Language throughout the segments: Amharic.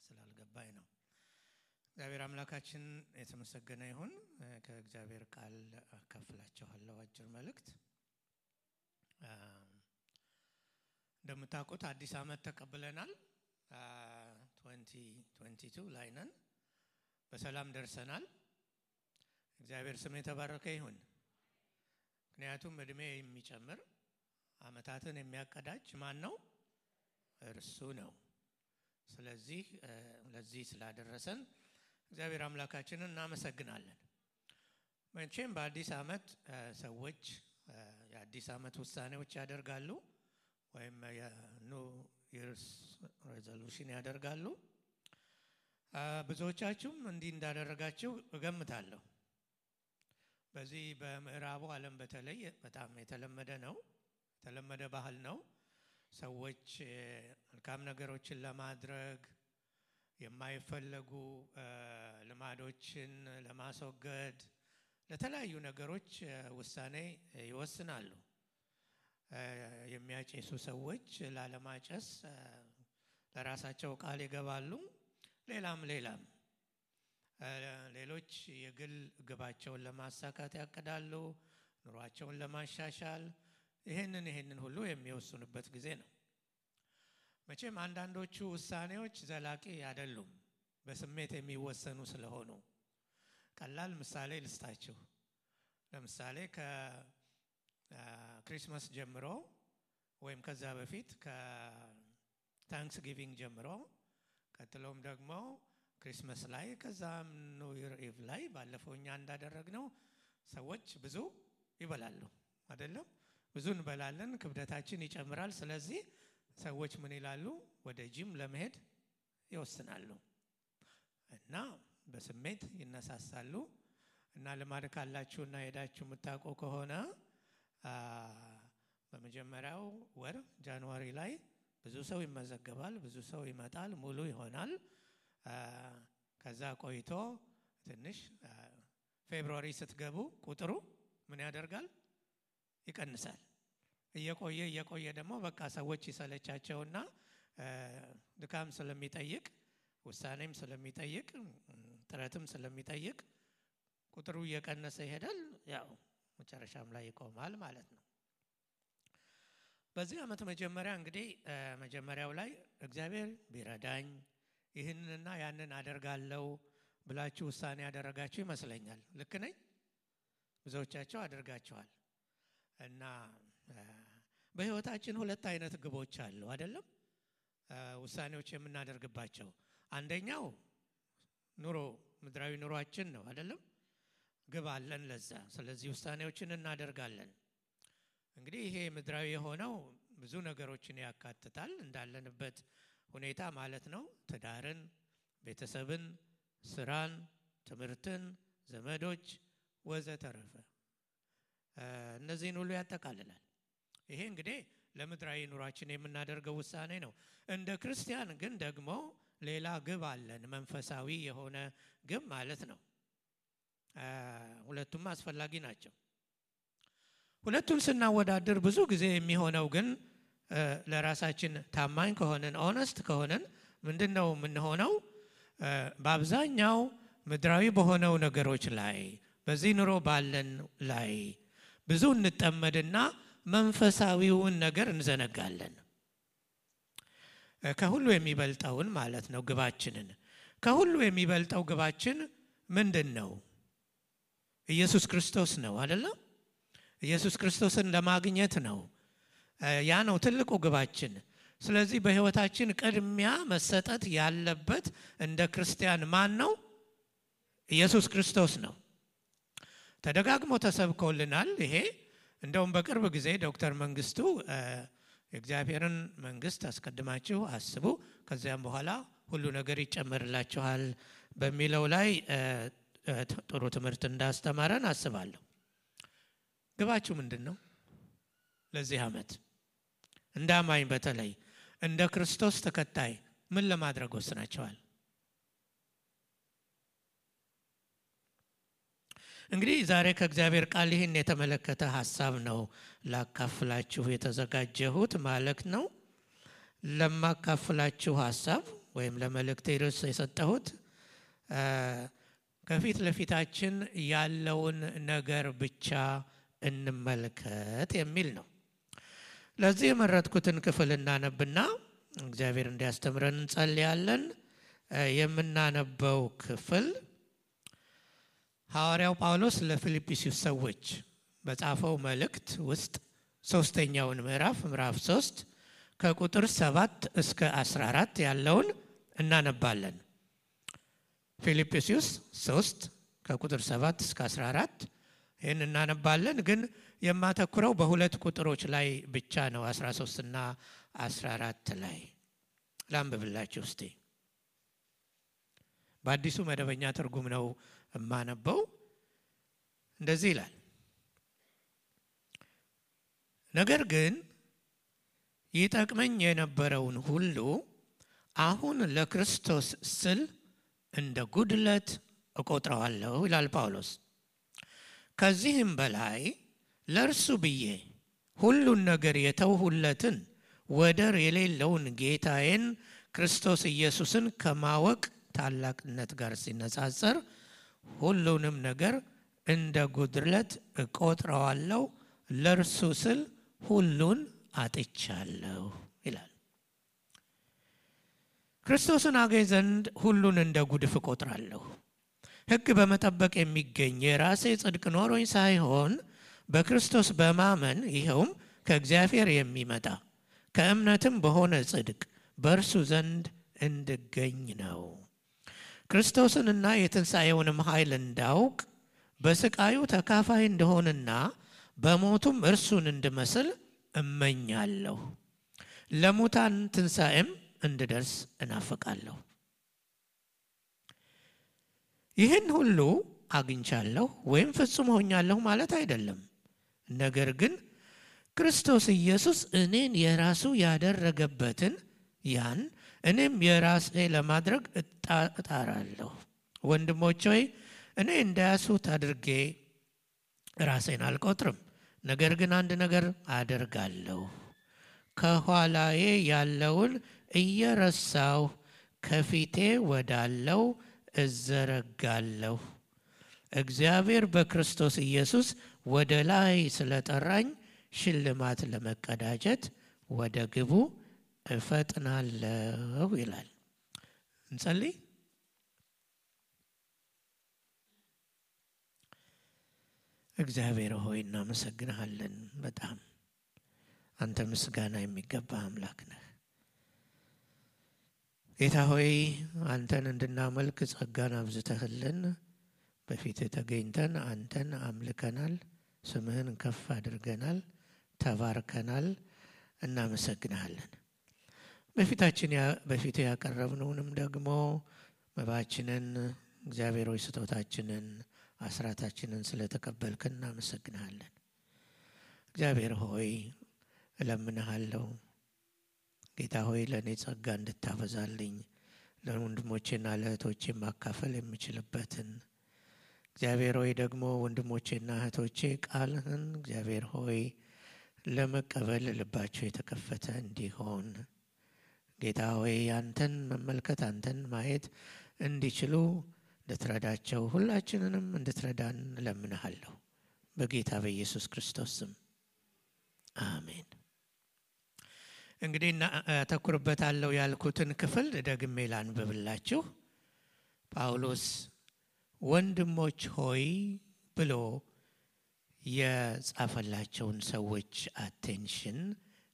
ስላልገባኝ ነው። እግዚአብሔር አምላካችን የተመሰገነ ይሁን። ከእግዚአብሔር ቃል አካፍላችኋለሁ አጭር መልእክት። እንደምታውቁት አዲስ ዓመት ተቀብለናል። 2022 ላይ ነን። በሰላም ደርሰናል። እግዚአብሔር ስም የተባረከ ይሁን። ምክንያቱም እድሜ የሚጨምር ዓመታትን የሚያቀዳጅ ማን ነው? እርሱ ነው። ስለዚህ ለዚህ ስላደረሰን እግዚአብሔር አምላካችንን እናመሰግናለን። መቼም በአዲስ ዓመት ሰዎች የአዲስ ዓመት ውሳኔዎች ያደርጋሉ ወይም የኒው ኢየርስ ሬዞሉሽን ያደርጋሉ። ብዙዎቻችሁም እንዲህ እንዳደረጋችሁ እገምታለሁ። በዚህ በምዕራቡ ዓለም በተለይ በጣም የተለመደ ነው፣ የተለመደ ባህል ነው። ሰዎች መልካም ነገሮችን ለማድረግ የማይፈለጉ ልማዶችን ለማስወገድ ለተለያዩ ነገሮች ውሳኔ ይወስናሉ። የሚያጨሱ ሰዎች ላለማጨስ ለራሳቸው ቃል ይገባሉ። ሌላም ሌሎች የግል ግባቸውን ለማሳካት ያቅዳሉ፣ ኑሯቸውን ለማሻሻል ይሄንን ሁሉ የሚወስኑበት ጊዜ ነው። መቼም አንዳንዶቹ ውሳኔዎች ዘላቂ አይደሉም፣ በስሜት የሚወሰኑ ስለሆኑ። ቀላል ምሳሌ ልስጣችሁ። ለምሳሌ ከክሪስማስ ጀምሮ ወይም ከዛ በፊት ከታንክስ ጊቪንግ ጀምሮ ቀጥሎም ደግሞ ክሪስማስ ላይ ከዛም ኒው ኢየር ኢቭ ላይ ባለፈው እኛ እንዳደረግነው ሰዎች ብዙ ይበላሉ አይደለም? ብዙ እንበላለን፣ ክብደታችን ይጨምራል። ስለዚህ ሰዎች ምን ይላሉ? ወደ ጂም ለመሄድ ይወስናሉ እና በስሜት ይነሳሳሉ። እና ልማድ ካላችሁና ሄዳችሁ የምታውቁ ከሆነ በመጀመሪያው ወር ጃንዋሪ ላይ ብዙ ሰው ይመዘገባል፣ ብዙ ሰው ይመጣል፣ ሙሉ ይሆናል። ከዛ ቆይቶ ትንሽ ፌብሩዋሪ ስትገቡ ቁጥሩ ምን ያደርጋል? ይቀንሳል። እየቆየ ደግሞ በቃ ሰዎች ይሰለቻቸውና ድካም ስለሚጠይቅ ውሳኔም ስለሚጠይቅ ጥረትም ስለሚጠይቅ ቁጥሩ እየቀነሰ ይሄዳል። ያው መጨረሻም ላይ ይቆማል ማለት ነው። በዚህ ዓመት መጀመሪያ እንግዲህ መጀመሪያው ላይ እግዚአብሔር ቢረዳኝ ይህንንና ያንን አደርጋለሁ ብላችሁ ውሳኔ ያደረጋችሁ ይመስለኛል። ልክ ነኝ? ብዙዎቻችሁ አድርጋችኋል። እና በህይወታችን ሁለት አይነት ግቦች አሉ አይደለም? ውሳኔዎች የምናደርግባቸው። አንደኛው ምድራዊ ኑሯችን ነው አይደለም? ግብ አለን ለዛ። ስለዚህ ውሳኔዎችን እናደርጋለን። እንግዲህ ይሄ ምድራዊ የሆነው ብዙ ነገሮችን ያካትታል፣ እንዳለንበት ሁኔታ ማለት ነው። ትዳርን፣ ቤተሰብን፣ ስራን፣ ትምህርትን፣ ዘመዶች ወዘተረፈ እነዚህን ሁሉ ያጠቃልላል። ይሄ እንግዲህ ለምድራዊ ኑሯችን የምናደርገው ውሳኔ ነው። እንደ ክርስቲያን ግን ደግሞ ሌላ ግብ አለን፣ መንፈሳዊ የሆነ ግብ ማለት ነው። ሁለቱም አስፈላጊ ናቸው። ሁለቱን ስናወዳድር ብዙ ጊዜ የሚሆነው ግን ለራሳችን ታማኝ ከሆነን ኦነስት ከሆነን ምንድነው የምንሆነው? በአብዛኛው ምድራዊ በሆነው ነገሮች ላይ በዚህ ኑሮ ባለን ላይ ብዙ እንጠመድና መንፈሳዊውን ነገር እንዘነጋለን። ከሁሉ የሚበልጠውን ማለት ነው ግባችንን። ከሁሉ የሚበልጠው ግባችን ምንድነው? ኢየሱስ ክርስቶስ ነው አይደለም? ኢየሱስ ክርስቶስን ለማግኘት ነው። ያ ነው ትልቁ ግባችን። ስለዚህ በህይወታችን ቅድሚያ መሰጠት ያለበት እንደ ክርስቲያን ማን ነው? ኢየሱስ ክርስቶስ ነው። ተደጋግሞ ተሰብኮልናል። ይሄ እንደውም በቅርብ ጊዜ ዶክተር መንግስቱ የእግዚአብሔርን መንግስት አስቀድማችሁ አስቡ ከዚያም በኋላ ሁሉ ነገር ይጨመርላችኋል በሚለው ላይ ጥሩ ትምህርት እንዳስተማረን አስባለሁ። ግባችሁ ምንድነው? ለዚህ ዓመት እንዳማኝ በተለይ እንደ ክርስቶስ ተከታይ ምን ለማድረግ ወስናችኋል? እንግዲህ ዛሬ ከእግዚአብሔር ቃል ይህን የተመለከተ ሐሳብ ነው ላካፍላችሁ የተዘጋጀሁት ማለት ነው። ለማካፍላችሁ ሐሳብ ወይም ለመልእክቴ ርዕስ የሰጠሁት ከፊት ለፊታችን ያለውን ነገር ብቻ እንመልከት የሚል ነው። ለዚህ የመረጥኩትን ክፍል እናነብና እግዚአብሔር እንዲያስተምረን እንጸልያለን። የምናነበው ክፍል ሐዋርያው ጳውሎስ ለፊልጵስዩስ ሰዎች በጻፈው መልእክት ውስጥ ሶስተኛውን ምዕራፍ 3 ከቁጥር 7 እስከ 14 ያለውን እናነባለን። ፊልጵስዩስ 3 ከቁጥር 7 እስከ 14 ይህን እናነባለን። ግን የማተኩረው በሁለት ቁጥሮች ላይ ብቻ ነው፣ 13 እና 14 ላይ ላንብብላችሁ እስቲ። በአዲሱ መደበኛ ትርጉም ነው የማነበው። እንደዚህ ይላል: ነገር ግን ይጠቅመኝ የነበረውን ሁሉ አሁን ለክርስቶስ ስል እንደ ጉድለት እቆጥረዋለሁ ይላል ጳውሎስ። ከዚህም በላይ ለእርሱ ብዬ ሁሉን ነገር የተውሁለትን ወደር የሌለውን ጌታዬን ክርስቶስ ኢየሱስን ከማወቅ ታላቅነት ጋር ሲነጻጸር ሁሉንም ነገር እንደ ጉድለት እቆጥረዋለሁ፣ ለእርሱ ስል ሁሉን አጥቻለሁ ይላል። ክርስቶስን አገኝ ዘንድ ሁሉን እንደ ጉድፍ እቆጥራለሁ። ሕግ በመጠበቅ የሚገኝ የራሴ ጽድቅ ኖሮኝ ሳይሆን በክርስቶስ በማመን ይኸውም ከእግዚአብሔር የሚመጣ ከእምነትም በሆነ ጽድቅ በእርሱ ዘንድ እንድገኝ ነው። ክርስቶስንና የትንሣኤውንም ኃይል እንዳውቅ በስቃዩ ተካፋይ እንደሆንና በሞቱም እርሱን እንድመስል እመኛለሁ። ለሙታን ትንሣኤም እንድደርስ እናፍቃለሁ። ይህን ሁሉ አግኝቻለሁ ወይም ፍጹም ሆኛለሁ ማለት አይደለም። ነገር ግን ክርስቶስ ኢየሱስ እኔን የራሱ ያደረገበትን ያን እኔም የራሴ ለማድረግ እጣራለሁ። ወንድሞች ሆይ እኔ እንዳያሱት አድርጌ ራሴን አልቆጥርም። ነገር ግን አንድ ነገር አደርጋለሁ፣ ከኋላዬ ያለውን እየረሳሁ ከፊቴ ወዳለው እዘረጋለሁ። እግዚአብሔር በክርስቶስ ኢየሱስ ወደ ላይ ስለጠራኝ ሽልማት ለመቀዳጀት ወደ ግቡ እፈጥናለሁ ይላል። እንጸልይ። እግዚአብሔር ሆይ እናመሰግንሃለን። በጣም አንተ ምስጋና የሚገባ አምላክ ነህ። ጌታ ሆይ አንተን እንድናመልክ ጸጋን አብዝተህልን በፊትህ ተገኝተን አንተን አምልከናል፣ ስምህን ከፍ አድርገናል፣ ተባርከናል። እናመሰግንሃለን። በፊትህ ያቀረብነውንም ደግሞ መባችንን እግዚአብሔር ሆይ ስጦታችንን አስራታችንን ስለተቀበልከን እናመሰግንሃለን። እግዚአብሔር ሆይ እለምንሃለሁ ጌታ ሆይ ለእኔ ጸጋ እንድታበዛልኝ ለወንድሞቼና ለእህቶቼ ማካፈል የምችልበትን እግዚአብሔር ሆይ ደግሞ ወንድሞቼና እህቶቼ ቃልህን እግዚአብሔር ሆይ ለመቀበል ልባቸው የተከፈተ እንዲሆን ጌታ ሆይ አንተን መመልከት አንተን ማየት እንዲችሉ እንድትረዳቸው ሁላችንንም እንድትረዳን እለምንሃለሁ በጌታ በኢየሱስ ክርስቶስ ስም አሜን። እንግዲህ አተኩርበታለሁ ያልኩትን ክፍል ደግሜ ላንብብላችሁ። ጳውሎስ ወንድሞች ሆይ ብሎ የጻፈላቸውን ሰዎች አቴንሽን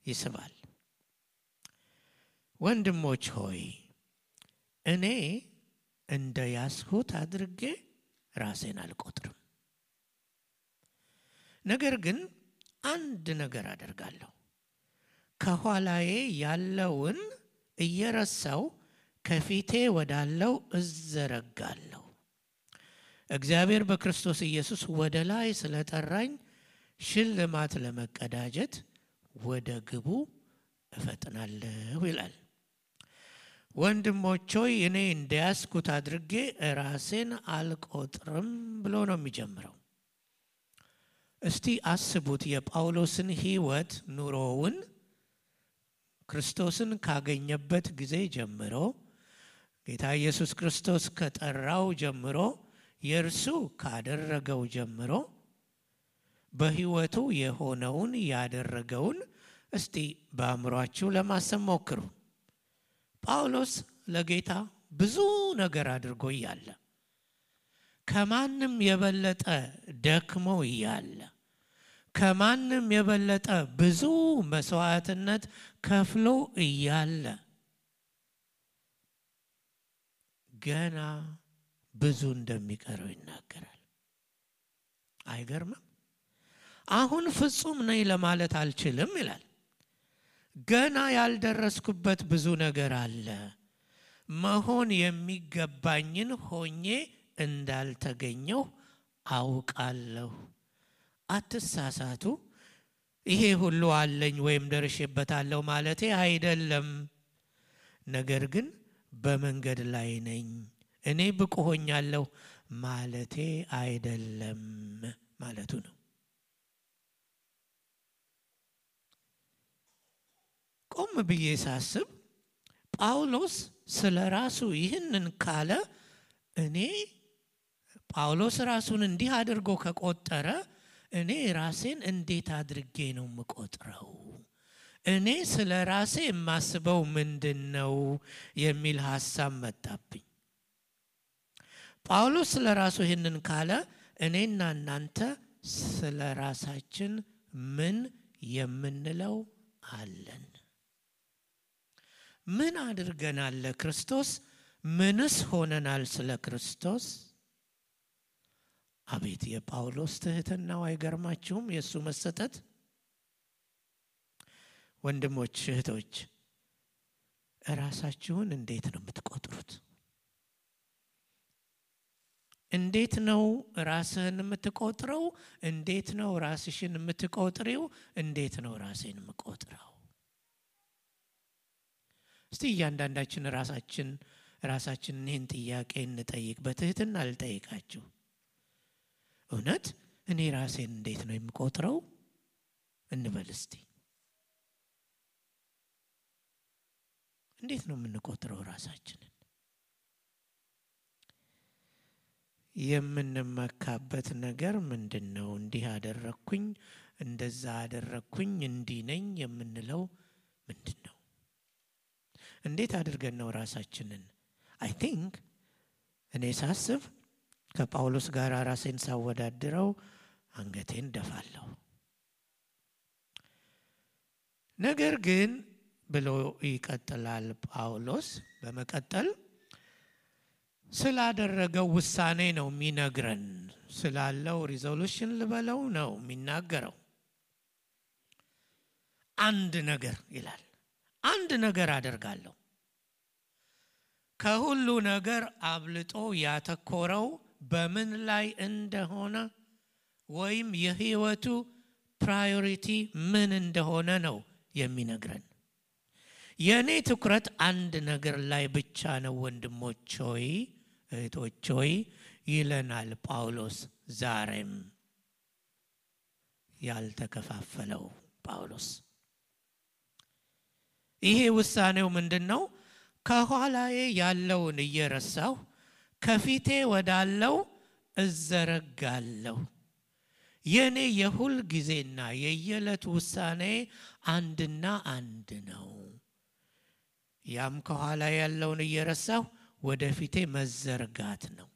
ይስባል። ወንድሞች ሆይ እኔ እንደ ያስሁት አድርጌ ራሴን አልቆጥርም። ነገር ግን አንድ ነገር አደርጋለሁ፣ ከኋላዬ ያለውን እየረሳው ከፊቴ ወዳለው እዘረጋለሁ። እግዚአብሔር በክርስቶስ ኢየሱስ ወደ ላይ ስለጠራኝ ሽልማት ለመቀዳጀት ወደ ግቡ እፈጥናለሁ ይላል። ወንድሞች ሆይ እኔ እንደያዝኩት አድርጌ ራሴን አልቆጥርም ብሎ ነው የሚጀምረው። እስቲ አስቡት የጳውሎስን ሕይወት ኑሮውን ክርስቶስን ካገኘበት ጊዜ ጀምሮ ጌታ ኢየሱስ ክርስቶስ ከጠራው ጀምሮ የእርሱ ካደረገው ጀምሮ በሕይወቱ የሆነውን ያደረገውን እስቲ በአእምሯችሁ ለማሰብ ሞክሩ። ጳውሎስ ለጌታ ብዙ ነገር አድርጎ እያለ ከማንም የበለጠ ደክሞ እያለ ከማንም የበለጠ ብዙ መስዋዕትነት ከፍሎ እያለ ገና ብዙ እንደሚቀረው ይናገራል። አይገርምም? አሁን ፍጹም ነኝ ለማለት አልችልም ይላል። ገና ያልደረስኩበት ብዙ ነገር አለ። መሆን የሚገባኝን ሆኜ እንዳልተገኘው አውቃለሁ። አትሳሳቱ። ይሄ ሁሉ አለኝ ወይም ደርሼበታለሁ ማለቴ አይደለም። ነገር ግን በመንገድ ላይ ነኝ፣ እኔ ብቁ ሆኛለሁ ማለቴ አይደለም ማለቱ ነው። ቆም ብዬ ሳስብ ጳውሎስ ስለ ራሱ ይህንን ካለ እኔ ጳውሎስ ራሱን እንዲህ አድርጎ ከቆጠረ እኔ ራሴን እንዴት አድርጌ ነው የምቆጥረው? እኔ ስለ ራሴ የማስበው ምንድነው የሚል ሐሳብ መጣብኝ። ጳውሎስ ስለ ራሱ ይህንን ካለ እኔና እናንተ ስለ ራሳችን ምን የምንለው አለን? ምን አድርገናል ለክርስቶስ? ምንስ ሆነናል ስለ ክርስቶስ? አቤት የጳውሎስ ትህትናው! አይገርማችሁም? የሱ መሰጠት። ወንድሞች እህቶች፣ ራሳችሁን እንዴት ነው የምትቆጥሩት? እንዴት ነው ራስህን የምትቆጥረው? እንዴት ነው ራስሽን የምትቆጥሪው? እንዴት ነው ራሴን የምቆጥረው? እስቲ እያንዳንዳችን ራሳችን ይህን ጥያቄ እንጠይቅ። በትህትና ልጠይቃችሁ። እውነት እኔ ራሴን እንዴት ነው የምቆጥረው እንበል እስቲ። እንዴት ነው የምንቆጥረው ራሳችንን? የምንመካበት ነገር ምንድነው? እንዲህ አደረኩኝ፣ እንደዛ አደረኩኝ፣ እንዲህ ነኝ የምንለው ምንድነው? እንዴት አድርገን ነው ራሳችንን? አይ ቲንክ እኔ ሳስብ ከጳውሎስ ጋር ራሴን ሳወዳድረው አንገቴን ደፋለሁ። ነገር ግን ብሎ ይቀጥላል ጳውሎስ። በመቀጠል ስላደረገው ውሳኔ ነው የሚነግረን። ስላለው ሪዞሉሽን ልበለው ነው የሚናገረው። አንድ ነገር ይላል። አንድ ነገር አደርጋለሁ። ከሁሉ ነገር አብልጦ ያተኮረው በምን ላይ እንደሆነ ወይም የህይወቱ ፕራዮሪቲ ምን እንደሆነ ነው የሚነግረን። የኔ ትኩረት አንድ ነገር ላይ ብቻ ነው ወንድሞች ሆይ እህቶች ሆይ ይለናል ጳውሎስ። ዛሬም ያልተከፋፈለው ጳውሎስ ይሄ ውሳኔው ምንድነው? ከኋላዬ ያለውን እየረሳሁ ከፊቴ ወዳለው እዘረጋለሁ። የኔ የሁል ጊዜና የየዕለት ውሳኔ አንድና አንድ ነው። ያም ከኋላ ያለውን እየረሳሁ ወደፊቴ መዘርጋት ነው።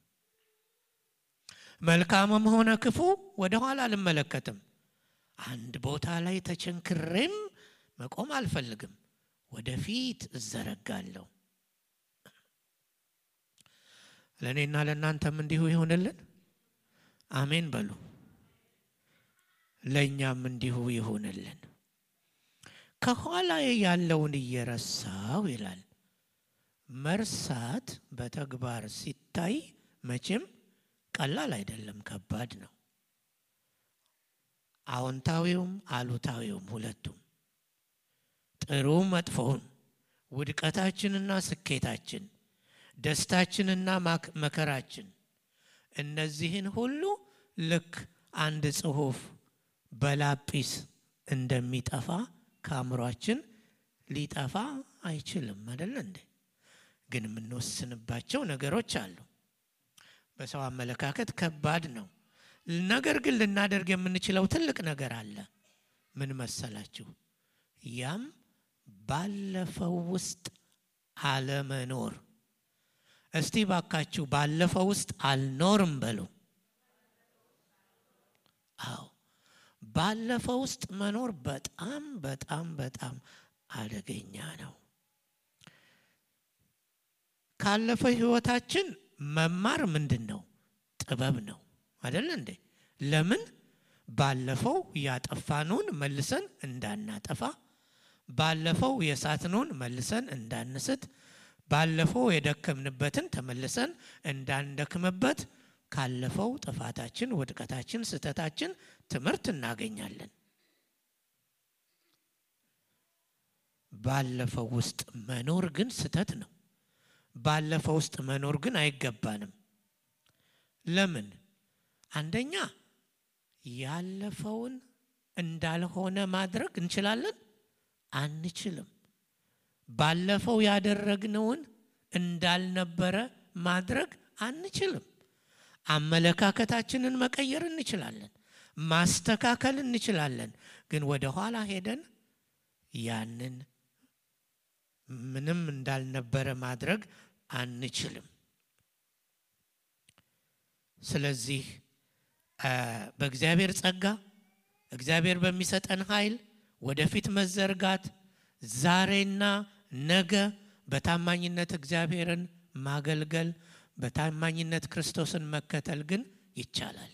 መልካምም ሆነ ክፉ ወደ ኋላ አልመለከትም። አንድ ቦታ ላይ ተቸንክሬም መቆም አልፈልግም። ወደፊት እዘረጋለሁ። ለኔና ለናንተም እንዲሁ ይሁንልን። አሜን በሉ። ለኛም እንዲሁ ይሁንልን። ከኋላ ያለውን እየረሳው ይላል። መርሳት በተግባር ሲታይ መቼም ቀላል አይደለም፣ ከባድ ነው። አዎንታዊውም አሉታዊውም ሁለቱም፣ ጥሩ መጥፎውን፣ ውድቀታችንና ስኬታችን፣ ደስታችንና መከራችን፣ እነዚህን ሁሉ ልክ አንድ ጽሑፍ በላጲስ እንደሚጠፋ ከአእምሯችን ሊጠፋ አይችልም አይደል እንዴ? ግን የምንወስንባቸው ነገሮች አሉ። በሰው አመለካከት ከባድ ነው። ነገር ግን ልናደርግ የምንችለው ትልቅ ነገር አለ። ምን መሰላችሁ? ያም ባለፈው ውስጥ አለመኖር። እስቲ ባካችሁ ባለፈው ውስጥ አልኖርም በሉ። አዎ ባለፈው ውስጥ መኖር በጣም በጣም በጣም አደገኛ ነው። ካለፈው ህይወታችን መማር ምንድነው? ጥበብ ነው አይደል እንዴ? ለምን ባለፈው ያጠፋነውን መልሰን እንዳናጠፋ፣ ባለፈው የሳትነውን መልሰን እንዳንስት፣ ባለፈው የደከምንበትን ተመልሰን እንዳንደክምበት ካለፈው ጥፋታችን፣ ውድቀታችን፣ ስተታችን ትምህርት እናገኛለን። ባለፈው ውስጥ መኖር ግን ስተት ነው። ባለፈው ውስጥ መኖር ግን አይገባንም። ለምን? አንደኛ ያለፈውን እንዳልሆነ ማድረግ እንችላለን? አንችልም። ባለፈው ያደረግነውን እንዳልነበረ ማድረግ አንችልም። አመለካከታችንን መቀየር እንችላለን፣ ማስተካከል እንችላለን። ግን ወደ ኋላ ሄደን ያንን ምንም እንዳልነበረ ማድረግ አንችልም። ስለዚህ በእግዚአብሔር ጸጋ፣ እግዚአብሔር በሚሰጠን ኃይል ወደፊት መዘርጋት፣ ዛሬና ነገ በታማኝነት እግዚአብሔርን ማገልገል፣ በታማኝነት ክርስቶስን መከተል ግን ይቻላል።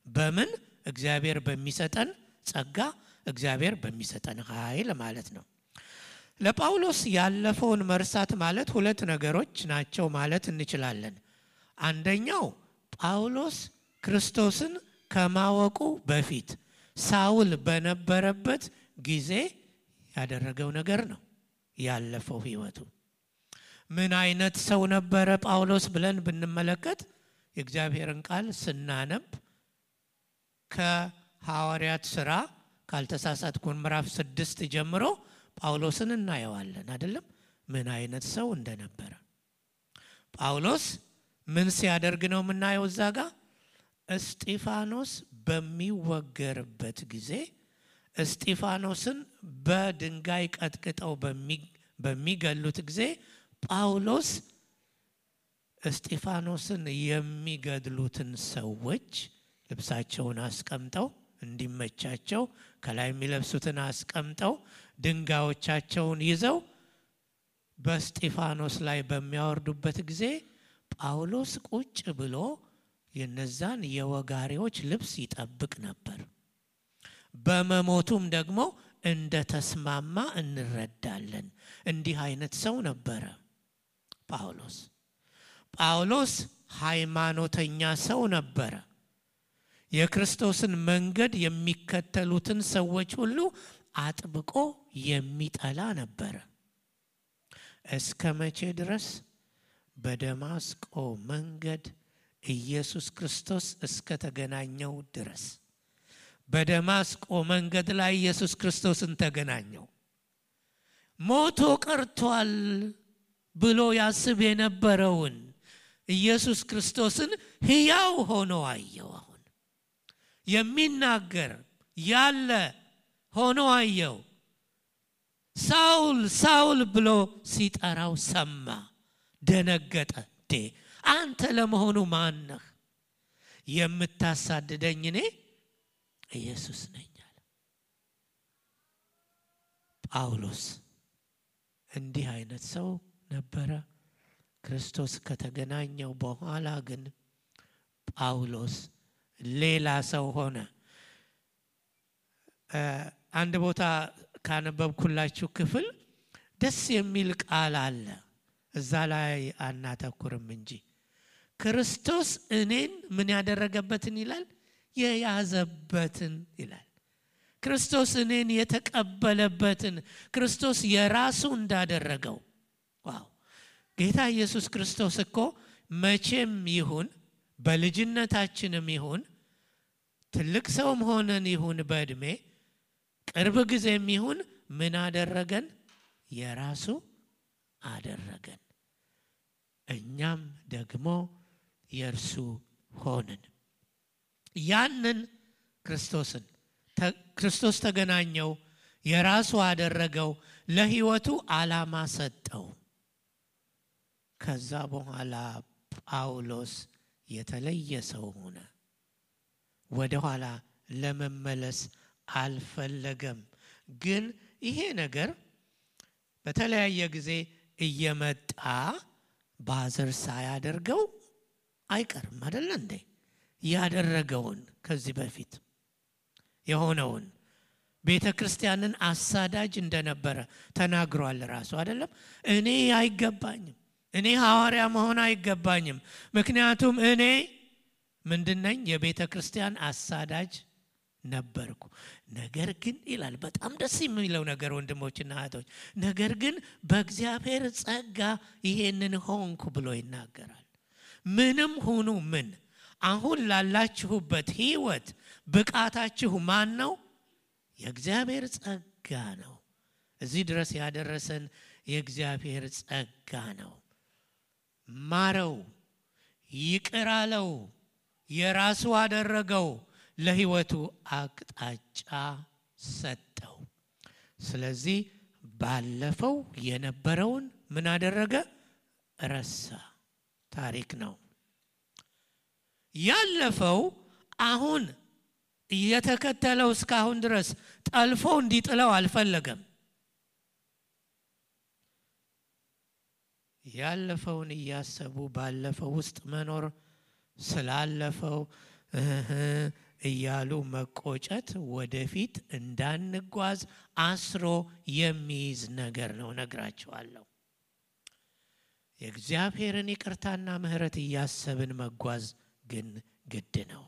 በምን? እግዚአብሔር በሚሰጠን ጸጋ፣ እግዚአብሔር በሚሰጠን ኃይል ማለት ነው። ለጳውሎስ ያለፈውን መርሳት ማለት ሁለት ነገሮች ናቸው ማለት እንችላለን። አንደኛው ጳውሎስ ክርስቶስን ከማወቁ በፊት ሳውል በነበረበት ጊዜ ያደረገው ነገር ነው ያለፈው ህይወቱ። ምን አይነት ሰው ነበረ ጳውሎስ ብለን ብንመለከት የእግዚአብሔርን ቃል ስናነብ ከሐዋርያት ሥራ ካልተሳሳትኩ ምዕራፍ 6 ጀምሮ ጳውሎስን እናየዋለን አይደለም? ምን አይነት ሰው እንደነበረ። ጳውሎስ ምን ሲያደርግ ነው የምናየው? እዛ ጋር እስጢፋኖስ በሚወገርበት ጊዜ እስጢፋኖስን በድንጋይ ቀጥቅጠው በሚገሉት ጊዜ ጳውሎስ እስጢፋኖስን የሚገድሉትን ሰዎች ልብሳቸውን አስቀምጠው እንዲመቻቸው ከላይ የሚለብሱትን አስቀምጠው ድንጋዮቻቸውን ይዘው በእስጢፋኖስ ላይ በሚያወርዱበት ጊዜ ጳውሎስ ቁጭ ብሎ የነዛን የወጋሪዎች ልብስ ይጠብቅ ነበር። በመሞቱም ደግሞ እንደተስማማ እንረዳለን። እንዲህ አይነት ሰው ነበረ ጳውሎስ። ጳውሎስ ሃይማኖተኛ ሰው ነበረ። የክርስቶስን መንገድ የሚከተሉትን ሰዎች ሁሉ አጥብቆ የሚጠላ ነበረ። እስከ መቼ ድረስ? በደማስቆ መንገድ ኢየሱስ ክርስቶስ እስከ ተገናኘው ድረስ። በደማስቆ መንገድ ላይ ኢየሱስ ክርስቶስን ተገናኘው። ሞቶ ቀርቷል ብሎ ያስብ የነበረውን ኢየሱስ ክርስቶስን ሕያው ሆኖ አየው። አሁን የሚናገር ያለ ሆኖ አየው። ሳውል ሳውል ብሎ ሲጠራው ሰማ፣ ደነገጠ። አንተ ለመሆኑ ማን ነህ? የምታሳድደኝ እኔ ኢየሱስ ነኝ አለ። ጳውሎስ እንዲህ አይነት ሰው ነበረ። ክርስቶስ ከተገናኘው በኋላ ግን ጳውሎስ ሌላ ሰው ሆነ። አንድ ቦታ ካነበብኩላችሁ ክፍል ደስ የሚል ቃል አለ። እዛ ላይ አናተኩርም እንጂ ክርስቶስ እኔን ምን ያደረገበትን ይላል? የያዘበትን ይላል። ክርስቶስ እኔን የተቀበለበትን፣ ክርስቶስ የራሱ እንዳደረገው። ዋው! ጌታ ኢየሱስ ክርስቶስ እኮ መቼም ይሁን በልጅነታችንም ይሁን ትልቅ ሰውም ሆነን ይሁን በእድሜ ቅርብ ጊዜም ይሁን ምን አደረገን? የራሱ አደረገን። እኛም ደግሞ የእርሱ ሆንን። ያንን ክርስቶስ ተገናኘው፣ የራሱ አደረገው፣ ለሕይወቱ ዓላማ ሰጠው። ከዛ በኋላ ጳውሎስ የተለየ ሰው ሆነ። ወደ ኋላ ለመመለስ አልፈለገም። ግን ይሄ ነገር በተለያየ ጊዜ እየመጣ ባዘር ሳያደርገው አይቀርም አይደል እንዴ? ያደረገውን ከዚህ በፊት የሆነውን ቤተ ክርስቲያንን አሳዳጅ እንደነበረ ተናግሯል ራሱ አይደለም? እኔ አይገባኝም፣ እኔ ሐዋርያ መሆን አይገባኝም፣ ምክንያቱም እኔ ምንድነኝ? የቤተ ክርስቲያን አሳዳጅ ነበርኩ። ነገር ግን ይላል፣ በጣም ደስ የሚለው ነገር ወንድሞችና እህቶች፣ ነገር ግን በእግዚአብሔር ጸጋ ይሄንን ሆንኩ ብሎ ይናገራል። ምንም ሁኑ ምን፣ አሁን ላላችሁበት ሕይወት ብቃታችሁ ማን ነው? የእግዚአብሔር ጸጋ ነው። እዚህ ድረስ ያደረሰን የእግዚአብሔር ጸጋ ነው። ማረው፣ ይቅር አለው፣ የራሱ አደረገው፣ ለሕይወቱ አቅጣጫ ሰጠው። ስለዚህ ባለፈው የነበረውን ምን አደረገ? ረሳ። ታሪክ ነው ያለፈው። አሁን እየተከተለው እስካሁን ድረስ ጠልፎ እንዲጥለው አልፈለገም። ያለፈውን እያሰቡ ባለፈው ውስጥ መኖር፣ ስላለፈው እያሉ መቆጨት ወደፊት እንዳንጓዝ አስሮ የሚይዝ ነገር ነው። ነግራችኋለሁ። የእግዚአብሔርን ይቅርታና ምሕረት እያሰብን መጓዝ ግን ግድ ነው።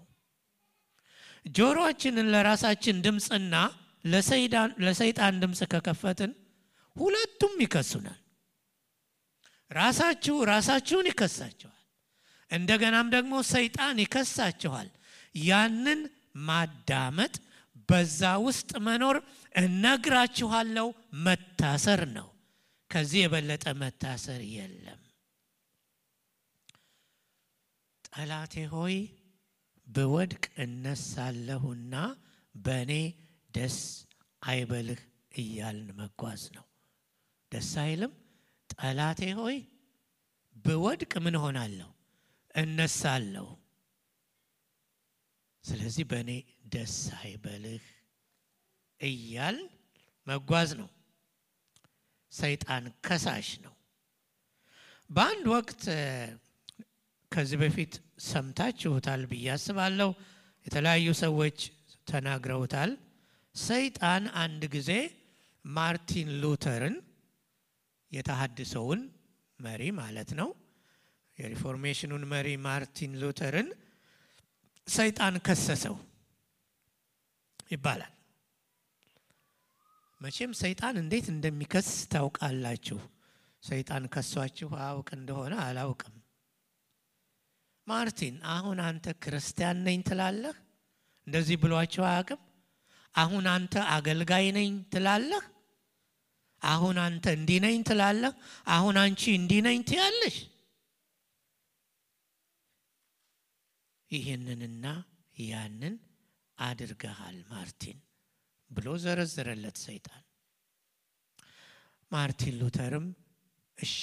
ጆሮአችንን ለራሳችን ድምፅና ለሰይጣን ድምፅ ከከፈትን ሁለቱም ይከሱናል። ራሳችሁን ይከሳችኋል፣ እንደገናም ደግሞ ሰይጣን ይከሳችኋል። ያንን ማዳመጥ፣ በዛ ውስጥ መኖር እነግራችኋለሁ መታሰር ነው። ከዚህ የበለጠ መታሰር የለም። ጠላቴ ሆይ ብወድቅ እነሳለሁና በእኔ ደስ አይበልህ እያልን መጓዝ ነው። ደስ አይልም? ጠላቴ ሆይ ብወድቅ ምን ሆናለሁ? እነሳለሁ። ስለዚህ በእኔ ደስ አይበልህ እያል መጓዝ ነው። ሰይጣን ከሳሽ ነው። በአንድ ወቅት ከዚህ በፊት ሰምታችሁታል ብዬ አስባለሁ፣ የተለያዩ ሰዎች ተናግረውታል። ሰይጣን አንድ ጊዜ ማርቲን ሉተርን፣ የተሐድሶውን መሪ ማለት ነው፣ የሪፎርሜሽኑን መሪ ማርቲን ሉተርን ሰይጣን ከሰሰው ይባላል። መቼም ሰይጣን እንዴት እንደሚከስ ታውቃላችሁ። ሰይጣን ከሷችሁ አውቅ እንደሆነ አላውቅም። ማርቲን አሁን አንተ ክርስቲያን ነኝ ትላለህ? እንደዚህ ብሏቸው አያውቅም? አሁን አንተ አገልጋይ ነኝ ትላለህ? አሁን አንተ እንዲህ ነኝ ትላለህ? አሁን አንቺ እንዲህ ነኝ ትያለሽ? ይህንንና ያንን አድርገሃል ማርቲን ብሎ ዘረዘረለት ሰይጣን። ማርቲን ሉተርም እሺ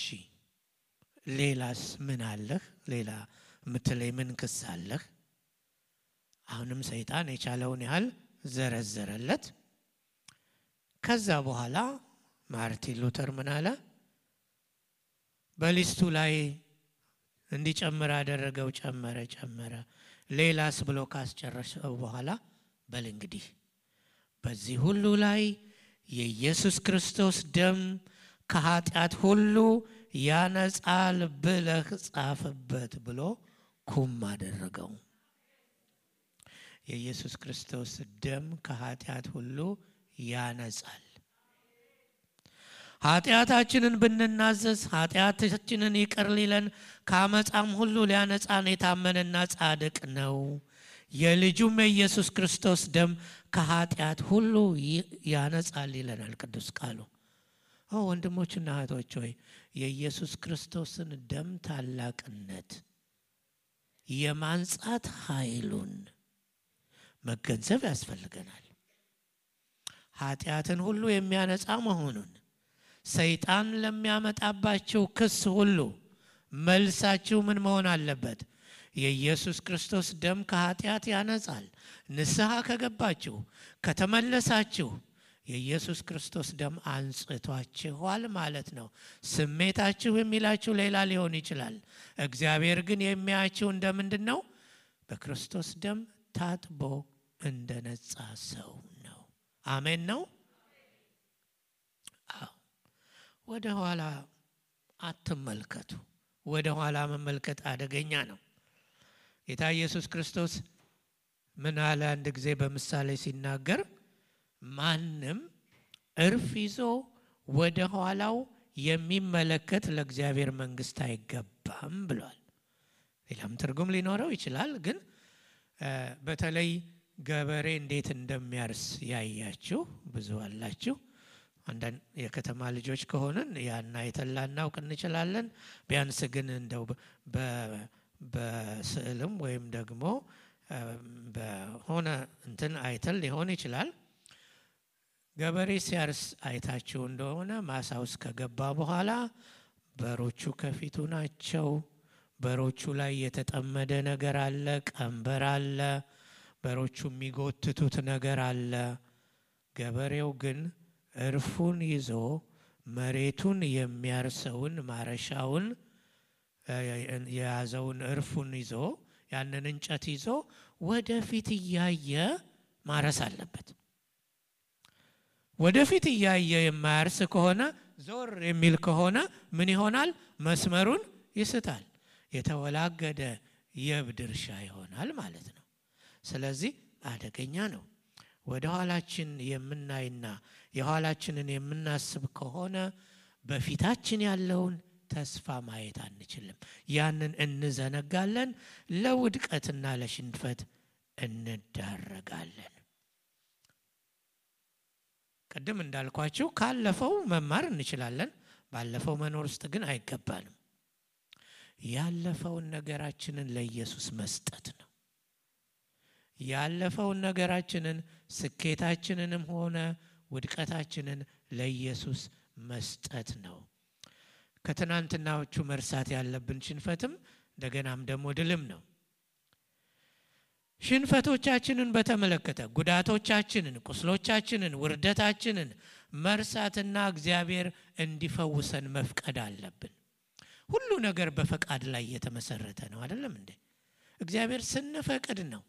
ሌላስ ምን አለህ? ሌላ ምትለይ ምን ክስ አለህ? አሁንም ሰይጣን የቻለውን ያህል ዘረዘረለት። ከዛ በኋላ ማርቲን ሉተር ምን አለ? በሊስቱ ላይ እንዲጨምር አደረገው። ጨመረ። ሌላስ ብሎ ካስጨረሰው በኋላ በል እንግዲህ በዚህ ሁሉ ላይ የኢየሱስ ክርስቶስ ደም ከኃጢአት ሁሉ ያነጻል ብለህ ጻፍበት ብሎ ኩም አደረገው። የኢየሱስ ክርስቶስ ደም ከኃጢአት ሁሉ ያነጻል። ኃጢአታችንን ብንናዘዝ ኃጢአታችንን ይቅር ሊለን ከአመፃም ሁሉ ሊያነጻን የታመነና ጻድቅ ነው። የልጁም የኢየሱስ ክርስቶስ ደም ከኃጢአት ሁሉ ያነጻል ይለናል ቅዱስ ቃሉ። ወንድሞችና እህቶች ሆይ የኢየሱስ ክርስቶስን ደም ታላቅነት የማንጻት ኃይሉን መገንዘብ ያስፈልገናል። ኃጢአትን ሁሉ የሚያነጻ መሆኑን ሰይጣን ለሚያመጣባቸው ክስ ሁሉ መልሳችሁ ምን መሆን አለበት? የኢየሱስ ክርስቶስ ደም ከኃጢአት ያነጻል። ንስሐ ከገባችሁ ከተመለሳችሁ የኢየሱስ ክርስቶስ ደም አንጽቷችኋል ማለት ነው። ስሜታችሁ የሚላችሁ ሌላ ሊሆን ይችላል። እግዚአብሔር ግን የሚያያችሁ እንደምንድን ነው? በክርስቶስ ደም ታጥቦ እንደነጻ ሰው ነው። አሜን ነው። ወደ ኋላ አትመልከቱ። ወደ ኋላ መመልከት አደገኛ ነው። ጌታ ኢየሱስ ክርስቶስ ምን አለ? አንድ ጊዜ በምሳሌ ሲናገር ማንም እርፍ ይዞ ወደ ኋላው የሚመለከት ለእግዚአብሔር መንግስት አይገባም ብሏል። ሌላም ትርጉም ሊኖረው ይችላል። ግን በተለይ ገበሬ እንዴት እንደሚያርስ ያያችሁ ብዙ አላችሁ። አንዳንድ የከተማ ልጆች ከሆነን ያና የተላናውቅ እንችላለን። ቢያንስ ግን እንደው በስዕልም ወይም ደግሞ በሆነ እንትን አይተል ሊሆን ይችላል። ገበሬ ሲያርስ አይታችሁ እንደሆነ ማሳ ውስጥ ከገባ በኋላ በሮቹ ከፊቱ ናቸው። በሮቹ ላይ የተጠመደ ነገር አለ፣ ቀንበር አለ፣ በሮቹ የሚጎትቱት ነገር አለ። ገበሬው ግን እርፉን ይዞ መሬቱን የሚያርሰውን ማረሻውን የያዘውን እርፉን ይዞ ያንን እንጨት ይዞ ወደፊት እያየ ማረስ አለበት። ወደፊት እያየ የማያርስ ከሆነ ዞር የሚል ከሆነ ምን ይሆናል? መስመሩን ይስታል። የተወላገደ የብድ እርሻ ይሆናል ማለት ነው። ስለዚህ አደገኛ ነው። ወደ ኋላችን የምናይና የኋላችንን የምናስብ ከሆነ በፊታችን ያለውን ተስፋ ማየት አንችልም። ያንን እንዘነጋለን፣ ለውድቀትና ለሽንፈት እንዳረጋለን። ቀደም እንዳልኳችሁ ካለፈው መማር እንችላለን። ባለፈው መኖር ውስጥ ግን አይገባንም። ያለፈውን ነገራችንን ለኢየሱስ መስጠት ነው። ያለፈውን ነገራችንን ስኬታችንንም ሆነ ውድቀታችንን ለኢየሱስ መስጠት ነው። ከትናንትናዎቹ መርሳት ያለብን ሽንፈትም እንደገናም ደግሞ ድልም ነው። ሽንፈቶቻችንን በተመለከተ ጉዳቶቻችንን፣ ቁስሎቻችንን፣ ውርደታችንን መርሳትና እግዚአብሔር እንዲፈውሰን መፍቀድ አለብን። ሁሉ ነገር በፈቃድ ላይ የተመሰረተ ነው አይደለም እንዴ? እግዚአብሔር ስንፈቅድ ነው፣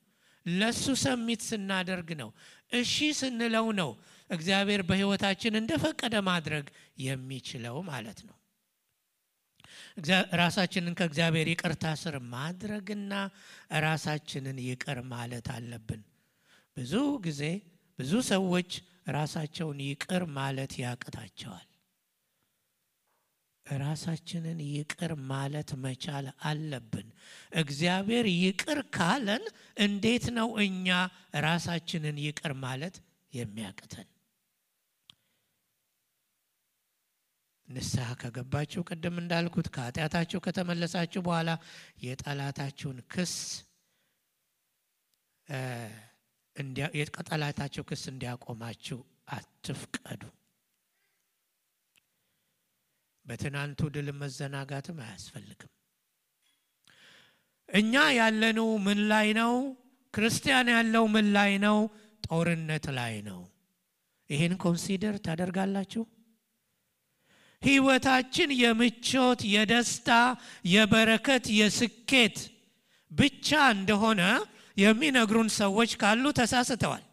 ለሱ ሰሚት ስናደርግ ነው፣ እሺ ስንለው ነው እግዚአብሔር በህይወታችን እንደፈቀደ ማድረግ የሚችለው ማለት ነው። ራሳችንን ከእግዚአብሔር ይቅርታ ስር ማድረግና ራሳችንን ይቅር ማለት አለብን። ብዙ ጊዜ ብዙ ሰዎች ራሳቸውን ይቅር ማለት ያቅታቸዋል። ራሳችንን ይቅር ማለት መቻል አለብን። እግዚአብሔር ይቅር ካለን እንዴት ነው እኛ ራሳችንን ይቅር ማለት የሚያቅተን? ንስሐ ከገባችሁ ቀደም እንዳልኩት ከኃጢአታችሁ ከተመለሳችሁ በኋላ የጠላታችሁን ክስ እንዲያቆማችሁ አትፍቀዱ። በትናንቱ ድል መዘናጋትም አያስፈልግም። እኛ ያለነው ምን ላይ ነው? ክርስቲያን ያለው ምን ላይ ነው? ጦርነት ላይ ነው። ይሄን ኮንሲደር ታደርጋላችሁ? ህይወታችን የምቾት፣ የደስታ፣ የበረከት፣ የስኬት ብቻ እንደሆነ የሚነግሩን ሰዎች ካሉ ተሳስተዋል።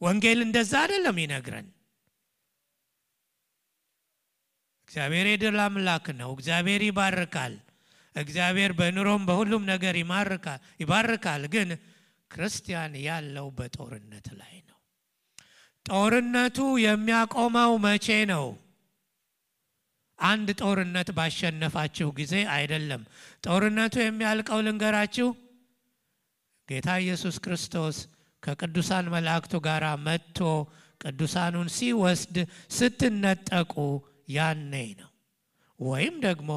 ወንጌል እንደዛ አይደለም ይነግረን። እግዚአብሔር የድል አምላክ ነው። እግዚአብሔር ይባርካል። እግዚአብሔር በኑሮም በሁሉም ነገር ይባርካል። ግን ክርስቲያን ያለው በጦርነት ላይ ነው። ጦርነቱ የሚያቆመው መቼ ነው? አንድ ጦርነት ባሸነፋችሁ ጊዜ አይደለም። ጦርነቱ የሚያልቀው ልንገራችሁ፣ ጌታ ኢየሱስ ክርስቶስ ከቅዱሳን መላእክቱ ጋር መጥቶ ቅዱሳኑን ሲወስድ ስትነጠቁ ያኔ ነው። ወይም ደግሞ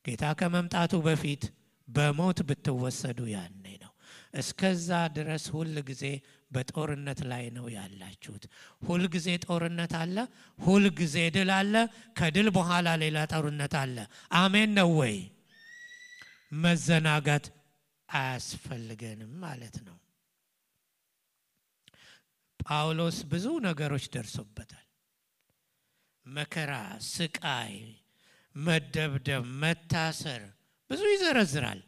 ጌታ ከመምጣቱ በፊት በሞት ብትወሰዱ ያኔ ነው። እስከዛ ድረስ ሁል ጊዜ በጦርነት ላይ ነው ያላችሁት። ሁል ጊዜ ጦርነት አለ፣ ሁል ጊዜ ድል አለ፣ ከድል በኋላ ሌላ ጦርነት አለ። አሜን ነው ወይ? መዘናጋት አያስፈልገንም ማለት ነው። ጳውሎስ ብዙ ነገሮች ደርሶበታል። መከራ፣ ስቃይ፣ መደብደብ፣ መታሰር ብዙ ይዘረዝራል።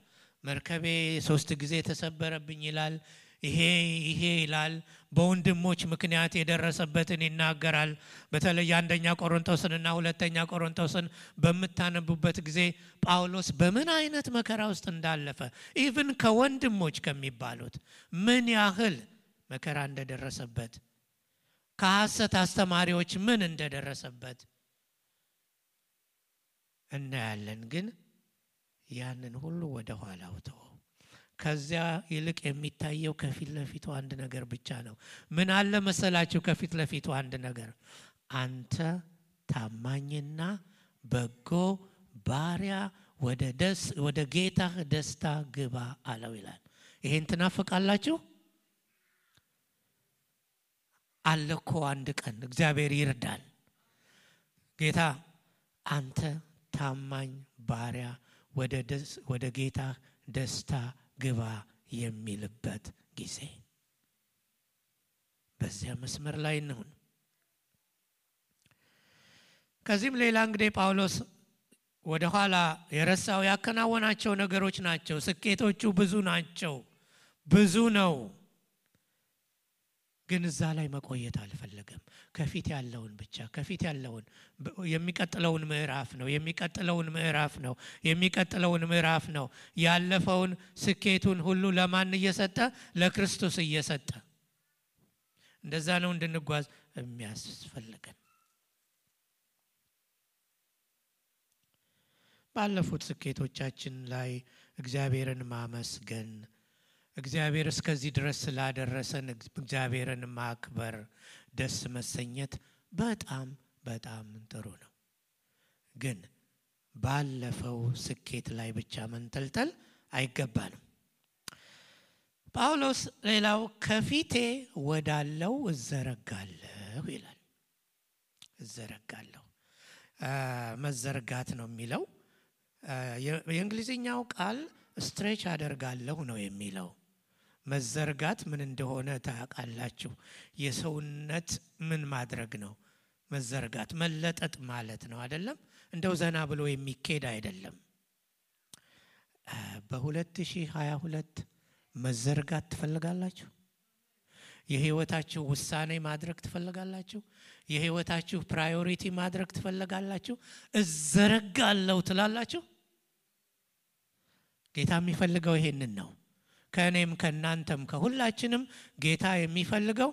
መርከቤ 3 ጊዜ ተሰበረብኝ ይላል። ይሄ ይላል። በወንድሞች ምክንያት የደረሰበትን ይናገራል። በተለይ አንደኛ ቆሮንቶስንና ሁለተኛ ቆሮንቶስን በምታነቡበት ጊዜ ጳውሎስ በምን አይነት መከራ ውስጥ እንዳለፈ ኢቭን ከወንድሞች ከሚባሉት ምን ያህል መከራ እንደደረሰበት፣ ከሐሰት አስተማሪዎች ምን እንደደረሰበት እናያለን። ግን ያንን ሁሉ ወደ ኋላው ተወው። ከዚያ ይልቅ የሚታየው ከፊት ለፊቱ አንድ ነገር ብቻ ነው። ምን አለ መሰላችሁ? ከፊት ለፊቱ አንድ ነገር፣ አንተ ታማኝና በጎ ባሪያ ወደ ጌታህ ደስታ ግባ አለው ይላል። ይሄን ትናፍቃላችሁ? አለኮ አንድ ቀን እግዚአብሔር ይርዳል። ጌታ አንተ ታማኝ ባሪያ ወደ ጌታ ደስታ ግባ የሚልበት ጊዜ፣ በዚያ መስመር ላይ ነው። ከዚህም ሌላ እንግዲህ ጳውሎስ ወደ ኋላ የረሳው ያከናወናቸው ነገሮች ናቸው። ስኬቶቹ ብዙ ናቸው፣ ብዙ ነው። ግን እዛ ላይ መቆየት አልፈለገም። ከፊት ያለውን ብቻ ከፊት ያለውን የሚቀጥለውን ምዕራፍ ነው ያለፈውን ስኬቱን ሁሉ ለማን እየሰጠ? ለክርስቶስ እየሰጠ። እንደዛ ነው እንድንጓዝ የሚያስፈልገን። ባለፉት ስኬቶቻችን ላይ እግዚአብሔርን ማመስገን፣ እግዚአብሔር እስከዚህ ድረስ ስላደረሰን እግዚአብሔርን ማክበር፣ ደስ መሰኘት በጣም በጣም ጥሩ ነው። ግን ባለፈው ስኬት ላይ ብቻ መንጠልጠል አይገባንም። ጳውሎስ ሌላው ከፊቴ ወዳለው እዘረጋለሁ ይላል። እዘረጋለሁ መዘርጋት ነው የሚለው። የእንግሊዝኛው ቃል ስትሬች አደርጋለሁ ነው የሚለው። መዘርጋት ምን እንደሆነ ታውቃላችሁ? የሰውነት ምን ማድረግ ነው? መዘርጋት መለጠጥ ማለት ነው አይደለም? እንደው ዘና ብሎ የሚኬድ አይደለም። በ2022 መዘርጋት ትፈልጋላችሁ? የህይወታችሁ ውሳኔ ማድረግ ትፈልጋላችሁ? የህይወታችሁ ፕራዮሪቲ ማድረግ ትፈልጋላችሁ? እዘረጋለሁ ትላላችሁ? ጌታ የሚፈልገው ይሄንን ነው። ከእኔም ከእናንተም ከሁላችንም ጌታ የሚፈልገው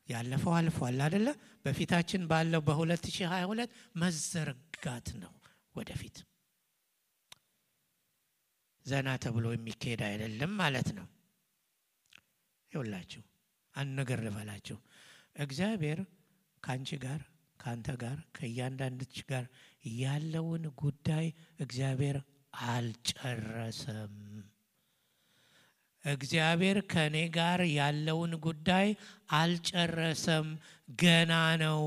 ያለፈው አልፏል አይደለ? በፊታችን ባለው በ2022 መዘርጋት ነው። ወደፊት ዘና ተብሎ የሚካሄድ አይደለም ማለት ነው። ይኸውላችሁ አንድ ነገር ልበላችሁ። እግዚአብሔር ካንቺ ጋር ካንተ ጋር ከእያንዳንድች ጋር ያለውን ጉዳይ እግዚአብሔር አልጨረሰም። እግዚአብሔር ከኔ ጋር ያለውን ጉዳይ አልጨረሰም፣ ገና ነው።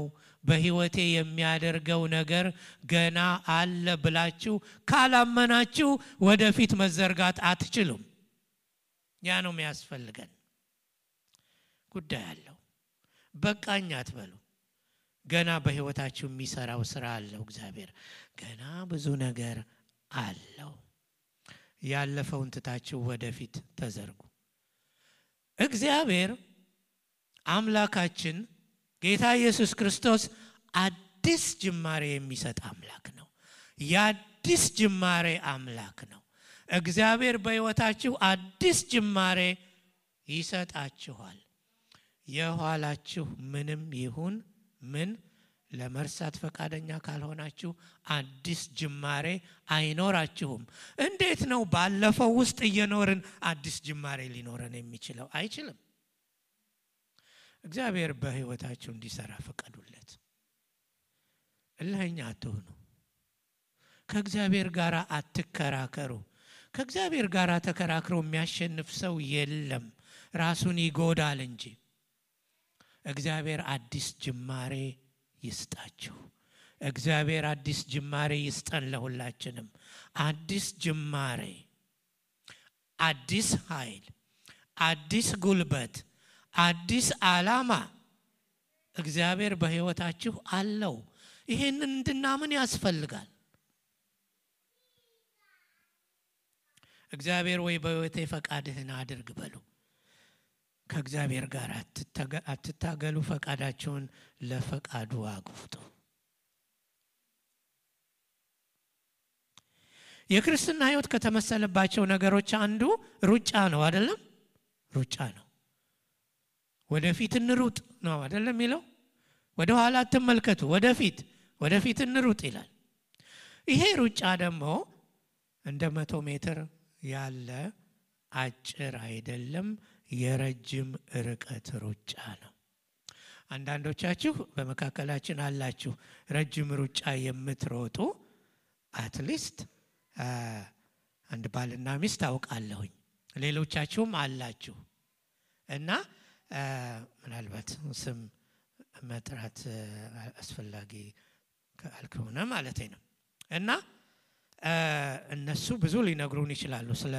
በህይወቴ የሚያደርገው ነገር ገና አለ ብላችሁ ካላመናችሁ ወደፊት መዘርጋት አትችሉም። ያ ነው የሚያስፈልገን። ጉዳይ አለው፣ በቃኝ አትበሉ። ገና በህይወታችሁ የሚሰራው ስራ አለው እግዚአብሔር። ገና ብዙ ነገር አለው። ያለፈውን ትታችሁ ወደፊት ተዘርጉ። እግዚአብሔር አምላካችን ጌታ ኢየሱስ ክርስቶስ አዲስ ጅማሬ የሚሰጥ አምላክ ነው። የአዲስ ጅማሬ አምላክ ነው። እግዚአብሔር በህይወታችሁ አዲስ ጅማሬ ይሰጣችኋል። የኋላችሁ ምንም ይሁን ምን ለመርሳት ፈቃደኛ ካልሆናችሁ አዲስ ጅማሬ አይኖራችሁም። እንዴት ነው ባለፈው ውስጥ እየኖርን አዲስ ጅማሬ ሊኖረን የሚችለው? አይችልም። እግዚአብሔር በህይወታችሁ እንዲሰራ ፈቀዱለት። እልህኛ አትሁኑ። ከእግዚአብሔር ጋር አትከራከሩ። ከእግዚአብሔር ጋር ተከራክሮ የሚያሸንፍ ሰው የለም፣ ራሱን ይጎዳል እንጂ። እግዚአብሔር አዲስ ጅማሬ ይስጣችሁ። እግዚአብሔር አዲስ ጅማሬ ይስጠን ለሁላችንም። አዲስ ጅማሬ፣ አዲስ ኃይል፣ አዲስ ጉልበት፣ አዲስ ዓላማ እግዚአብሔር በሕይወታችሁ አለው። ይሄንን እንድናምን ያስፈልጋል። እግዚአብሔር ወይ በሕይወቴ ፈቃድህን አድርግ በሉ። ከእግዚአብሔር ጋር አትታገሉ፣ ፈቃዳችሁን ለፈቃዱ አግፉት። የክርስትና ሕይወት ከተመሰለባቸው ነገሮች አንዱ ሩጫ ነው አይደለም? ሩጫ ነው። ወደፊት እንሩጥ ነው አይደለም የሚለው? ወደ ኋላ አትመልከቱ፣ ወደፊት እንሩጥ ይላል። ይሄ ሩጫ ደግሞ እንደ 100 ሜትር ያለ አጭር አይደለም፣ የረጅም ርቀት ሩጫ ነው። አንዳንዶቻችሁ በመካከላችን አላችሁ ረጅም ሩጫ የምትሮጡ። አትሊስት አንድ ባልና ሚስት አውቃለሁኝ፣ ሌሎቻችሁም አላችሁ እና ምናልባት ስም መጥራት አስፈላጊ ካልሆነ ማለት ነው። እና እነሱ ብዙ ሊነግሩን ይችላሉ ስለ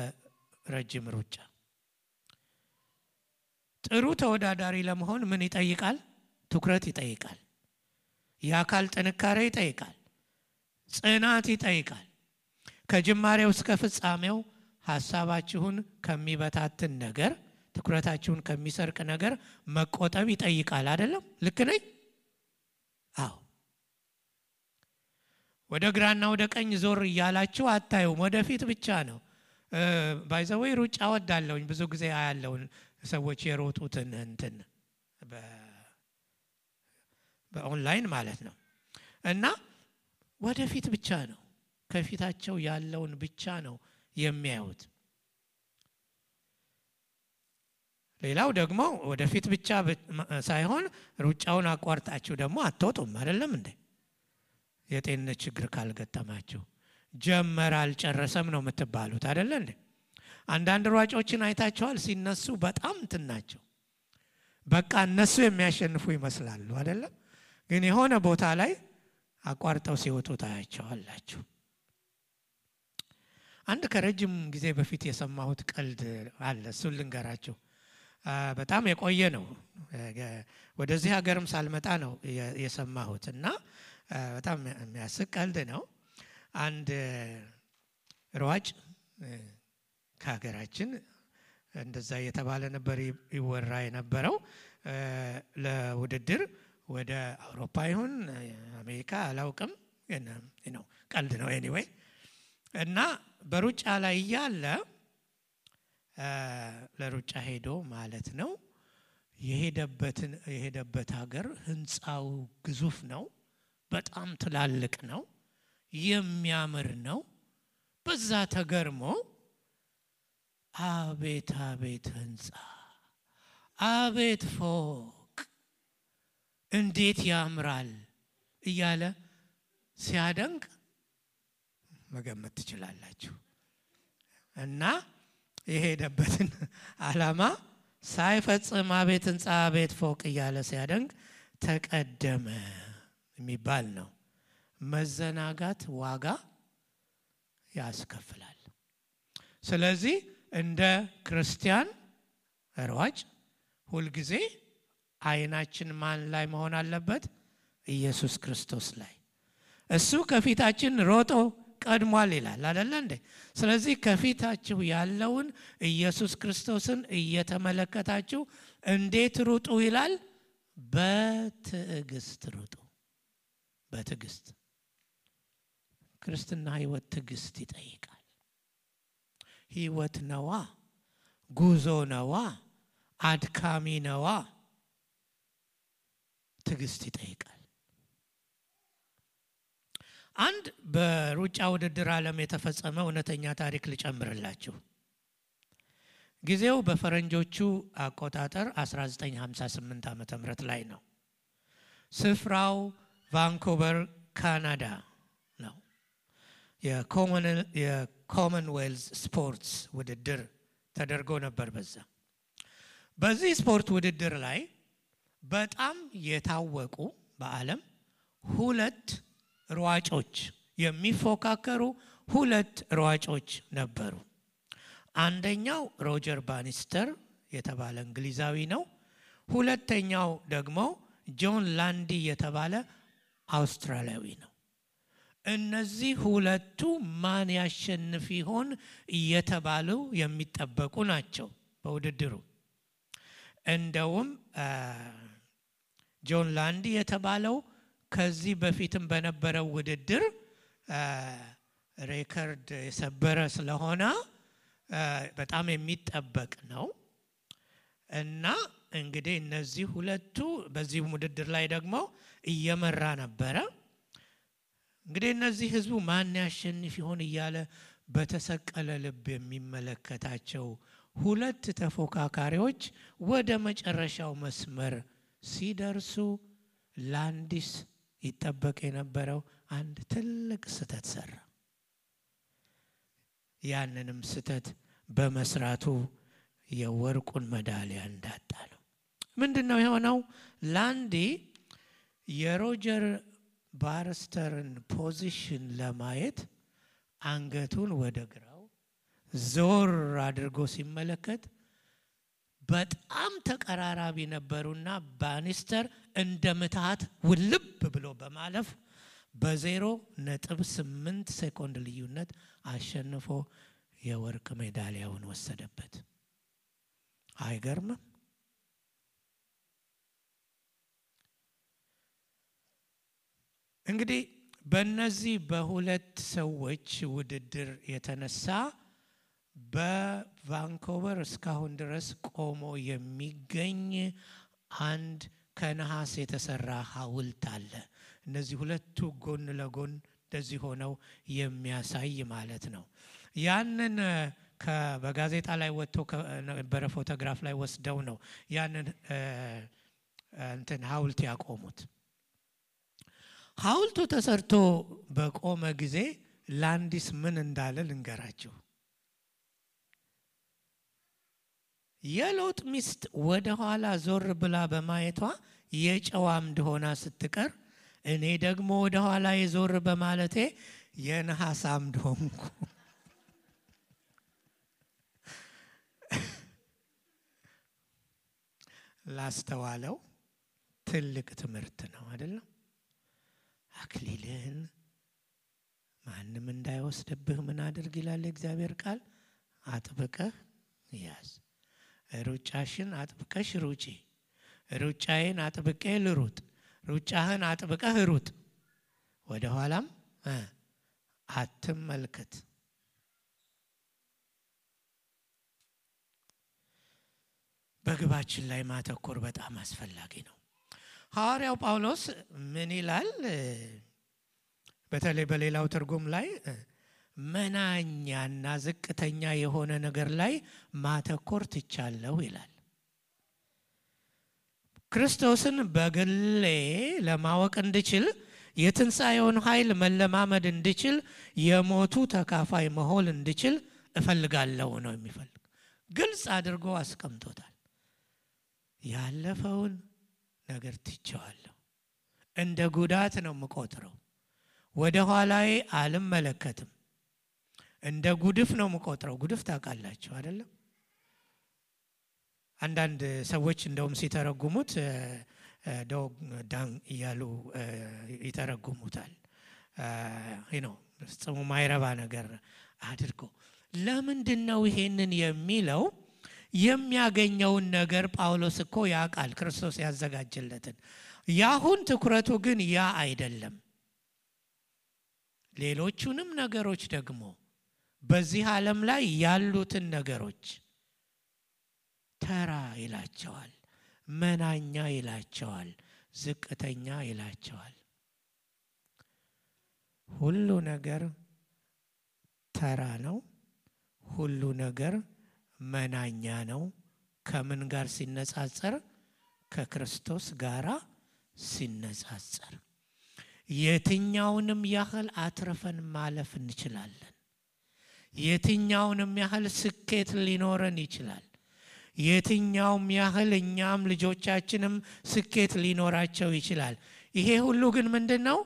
ረጅም ሩጫ። ጥሩ ተወዳዳሪ ለመሆን ምን ይጠይቃል? ትኩረት ይጠይቃል፣ የአካል ጥንካሬ ይጠይቃል፣ ጽናት ይጠይቃል። ከጅማሬው እስከ ፍጻሜው ሐሳባችሁን ከሚበታትን ነገር፣ ትኩረታችሁን ከሚሰርቅ ነገር መቆጠብ ይጠይቃል። አይደለም? ልክ ነኝ? አዎ። ወደ ግራና ወደ ቀኝ ዞር እያላችሁ አታዩም፣ ወደፊት ብቻ ነው። ባይዘዌ ሩጫ ወዳለሁኝ፣ ብዙ ጊዜ አያለውን ሰዎች የሮጡትን እንትን በኦንላይን ማለት ነው። እና ወደፊት ብቻ ነው፣ ከፊታቸው ያለውን ብቻ ነው የሚያዩት። ሌላው ደግሞ ወደፊት ብቻ ሳይሆን ሩጫውን አቋርጣችሁ ደግሞ አትወጡም። አይደለም እንዴ? የጤንነት ችግር ካልገጠማችሁ ጀመረ አልጨረሰም ነው የምትባሉት። አይደለ እንዴ? አንዳንድ ሯጮችን አይታቸዋል፣ ሲነሱ በጣም እንትናቸው በቃ እነሱ የሚያሸንፉ ይመስላሉ። አይደለም? ግን የሆነ ቦታ ላይ አቋርጠው ሲወጡ ታያቸዋላችሁ። አንድ ከረጅም ጊዜ በፊት የሰማሁት ቀልድ አለ፣ እሱን ልንገራችሁ። በጣም የቆየ ነው፣ ወደዚህ ሀገርም ሳልመጣ ነው የሰማሁት እና በጣም የሚያስቅ ቀልድ ነው። አንድ ሯጭ ከሀገራችን እንደዛ እየተባለ ነበር ይወራ የነበረው፣ ለውድድር ወደ አውሮፓ ይሁን አሜሪካ አላውቅም፣ ነው ቀልድ ነው ኤኒዌይ። እና በሩጫ ላይ እያለ ለሩጫ ሄዶ ማለት ነው የሄደበት ሀገር ህንፃው ግዙፍ ነው፣ በጣም ትላልቅ ነው፣ የሚያምር ነው። በዛ ተገርሞ አቤት አቤት ህንፃ፣ አቤት ፎቅ እንዴት ያምራል እያለ ሲያደንቅ መገመት ትችላላችሁ። እና የሄደበትን ዓላማ ሳይፈጽም አቤት ህንፃ፣ አቤት ፎቅ እያለ ሲያደንቅ ተቀደመ የሚባል ነው። መዘናጋት ዋጋ ያስከፍላል። ስለዚህ እንደ ክርስቲያን ሯጭ ሁልጊዜ አይናችን ማን ላይ መሆን አለበት? ኢየሱስ ክርስቶስ ላይ። እሱ ከፊታችን ሮጦ ቀድሟል ይላል አይደል እንዴ? ስለዚህ ከፊታችሁ ያለውን ኢየሱስ ክርስቶስን እየተመለከታችሁ እንዴት ሩጡ ይላል? በትዕግስት ሩጡ። በትዕግስት። ክርስትና ህይወት ትዕግስት ይጠይቃል። ህይወት ነዋ፣ ጉዞ ነዋ፣ አድካሚ ነዋ። ትዕግስት ይጠይቃል። አንድ በሩጫ ውድድር ዓለም የተፈጸመ እውነተኛ ታሪክ ልጨምርላችሁ። ጊዜው በፈረንጆቹ አቆጣጠር 1958 ዓመተ ምህረት ላይ ነው። ስፍራው ቫንኩቨር ካናዳ ነው። የኮመንዌልዝ ስፖርትስ ውድድር ተደርጎ ነበር። በዚህ ስፖርት ውድድር ላይ በጣም የታወቁ በዓለም 2 ሯጮች የሚፎካከሩ 2 ሯጮች ነበሩ። አንደኛው ሮጀር ባኒስተር የተባለ እንግሊዛዊ ነው። ሁለተኛው ደግሞ ጆን ላንዲ የተባለ አውስትራሊያዊ ነው። እነዚህ 2ቱ ማን ያሸንፍ ይሆን እየተባሉ የሚጠበቁ ናቸው በውድድሩ። እንደውም ጆን ላንዲ የተባለው ከዚህ በፊትም በነበረው ውድድር ሬከርድ የሰበረ ስለሆነ በጣም የሚጠበቅ ነው። እና እንግዲህ እነዚህ 2ቱ በዚህ ውድድር ላይ ደግሞ እየመራ ነበረ። እንግዲህ እነዚህ ህዝቡ ማን ያሸንፍ ይሆን እያለ በተሰቀለ ልብ የሚመለከታቸው 2 ተፎካካሪዎች ወደ መጨረሻው መስመር ሲደርሱ ላንዲስ ይጠበቅ የነበረው አንድ ትልቅ ስህተት ሰራ። ያንንም ስህተት በመስራቱ የወርቁን ሜዳሊያ እንዳጣ ነው። ምንድነው የሆነው? ላንዲ የሮጀር ባኒስተርን ፖዚሽን ለማየት አንገቱን ወደ ግራው ዞር አድርጎ ሲመለከት በጣም ተቀራራቢ ነበሩና ባኒስተር እንደምታት ውልብ ብሎ በማለፍ በ0.8 ሴኮንድ ልዩነት አሸንፎ የወርቅ ሜዳሊያውን ወሰደበት። አይገርምም? እንግዲህ በእነዚህ በ2 ሰዎች ውድድር የተነሳ በቫንኮቨር እስካሁን ድረስ ቆሞ የሚገኝ አንድ ከነሐስ የተሰራ ሐውልት አለ። እነዚህ 2ቱ ጎን ለጎን እንደዚህ ሆነው የሚያሳይ ማለት ነው። ያንን በጋዜጣ ላይ ወጥቶ ከነበረ ፎቶግራፍ ላይ ወስደው ነው ያንን ሐውልት ያቆሙት። ሐውልቱ ተሰርቶ በቆመ ጊዜ ላንዲስ ምን እንዳለ ልንገራችሁ። የሎጥ ሚስት ወደ ኋላ ዞር ብላ በማየቷ የጨዋ አምድ ሆና ስትቀር እኔ ደግሞ ወደ ኋላ የዞር በማለቴ የነሐስ አምድ ሆንኩ። ላስተዋለው ትልቅ ትምህርት ነው አይደለም? አክሊልህን ማንም እንዳይወስድብህ ምን አድርግ ይላል እግዚአብሔር ቃል? አጥብቀህ ያዝ። ሩጫሽን አጥብቀሽ ሩጪ። ሩጫዬን አጥብቄ ልሩጥ። ሩጫህን አጥብቀህ ሩጥ። ወደ ኋላም አትመልከት። በግባችን ላይ ማተኮር በጣም አስፈላጊ ነው። ሐዋርያው ጳውሎስ ምን ይላል? በተለይ በሌላው ትርጉም ላይ መናኛና ዝቅተኛ የሆነ ነገር ላይ ማተኮር ትቻለሁ ይላል። ክርስቶስን በግሌ ለማወቅ እንድችል የትንሣኤውን ኃይል መለማመድ እንድችል የሞቱ ተካፋይ መሆን እንድችል እፈልጋለሁ ነው የሚፈልግ። ግልጽ አድርጎ አስቀምጦታል። ያለፈውን ነገር ትቼዋለሁ። እንደ ጉዳት ነው የምቆጥረው። ወደ ኋላዬ አልመለከትም። እንደ ጉድፍ ነው የምቆጥረው። ጉድፍ ታውቃላችሁ አይደለም? አንዳንድ ሰዎች እንደውም ሲተረጉሙት ዶግ ዳን እያሉ ይተረጉሙታል። ጽሙ ማይረባ ነገር አድርጎ። ለምንድነው ይሄንን የሚለው? የሚያገኘውን ነገር ጳውሎስ እኮ ያውቃል፣ ክርስቶስ ያዘጋጀለትን። ያሁን ትኩረቱ ግን ያ አይደለም። ሌሎቹንም ነገሮች ደግሞ በዚህ ዓለም ላይ ያሉትን ነገሮች ተራ ይላቸዋል፣ መናኛ ይላቸዋል፣ ዝቅተኛ ይላቸዋል። ሁሉ ነገር ተራ ነው። ሁሉ ነገር መናኛ ነው። ከምን ጋር ሲነጻጸር? ከክርስቶስ ጋራ ሲነጻጸር። የትኛውንም ያህል አትረፈን ማለፍ እንችላለን። የትኛውንም ያህል ስኬት ሊኖረን ይችላል። የትኛውም ያህል እኛም ልጆቻችንም ስኬት ሊኖራቸው ይችላል። ይሄ ሁሉ ግን ምንድነው?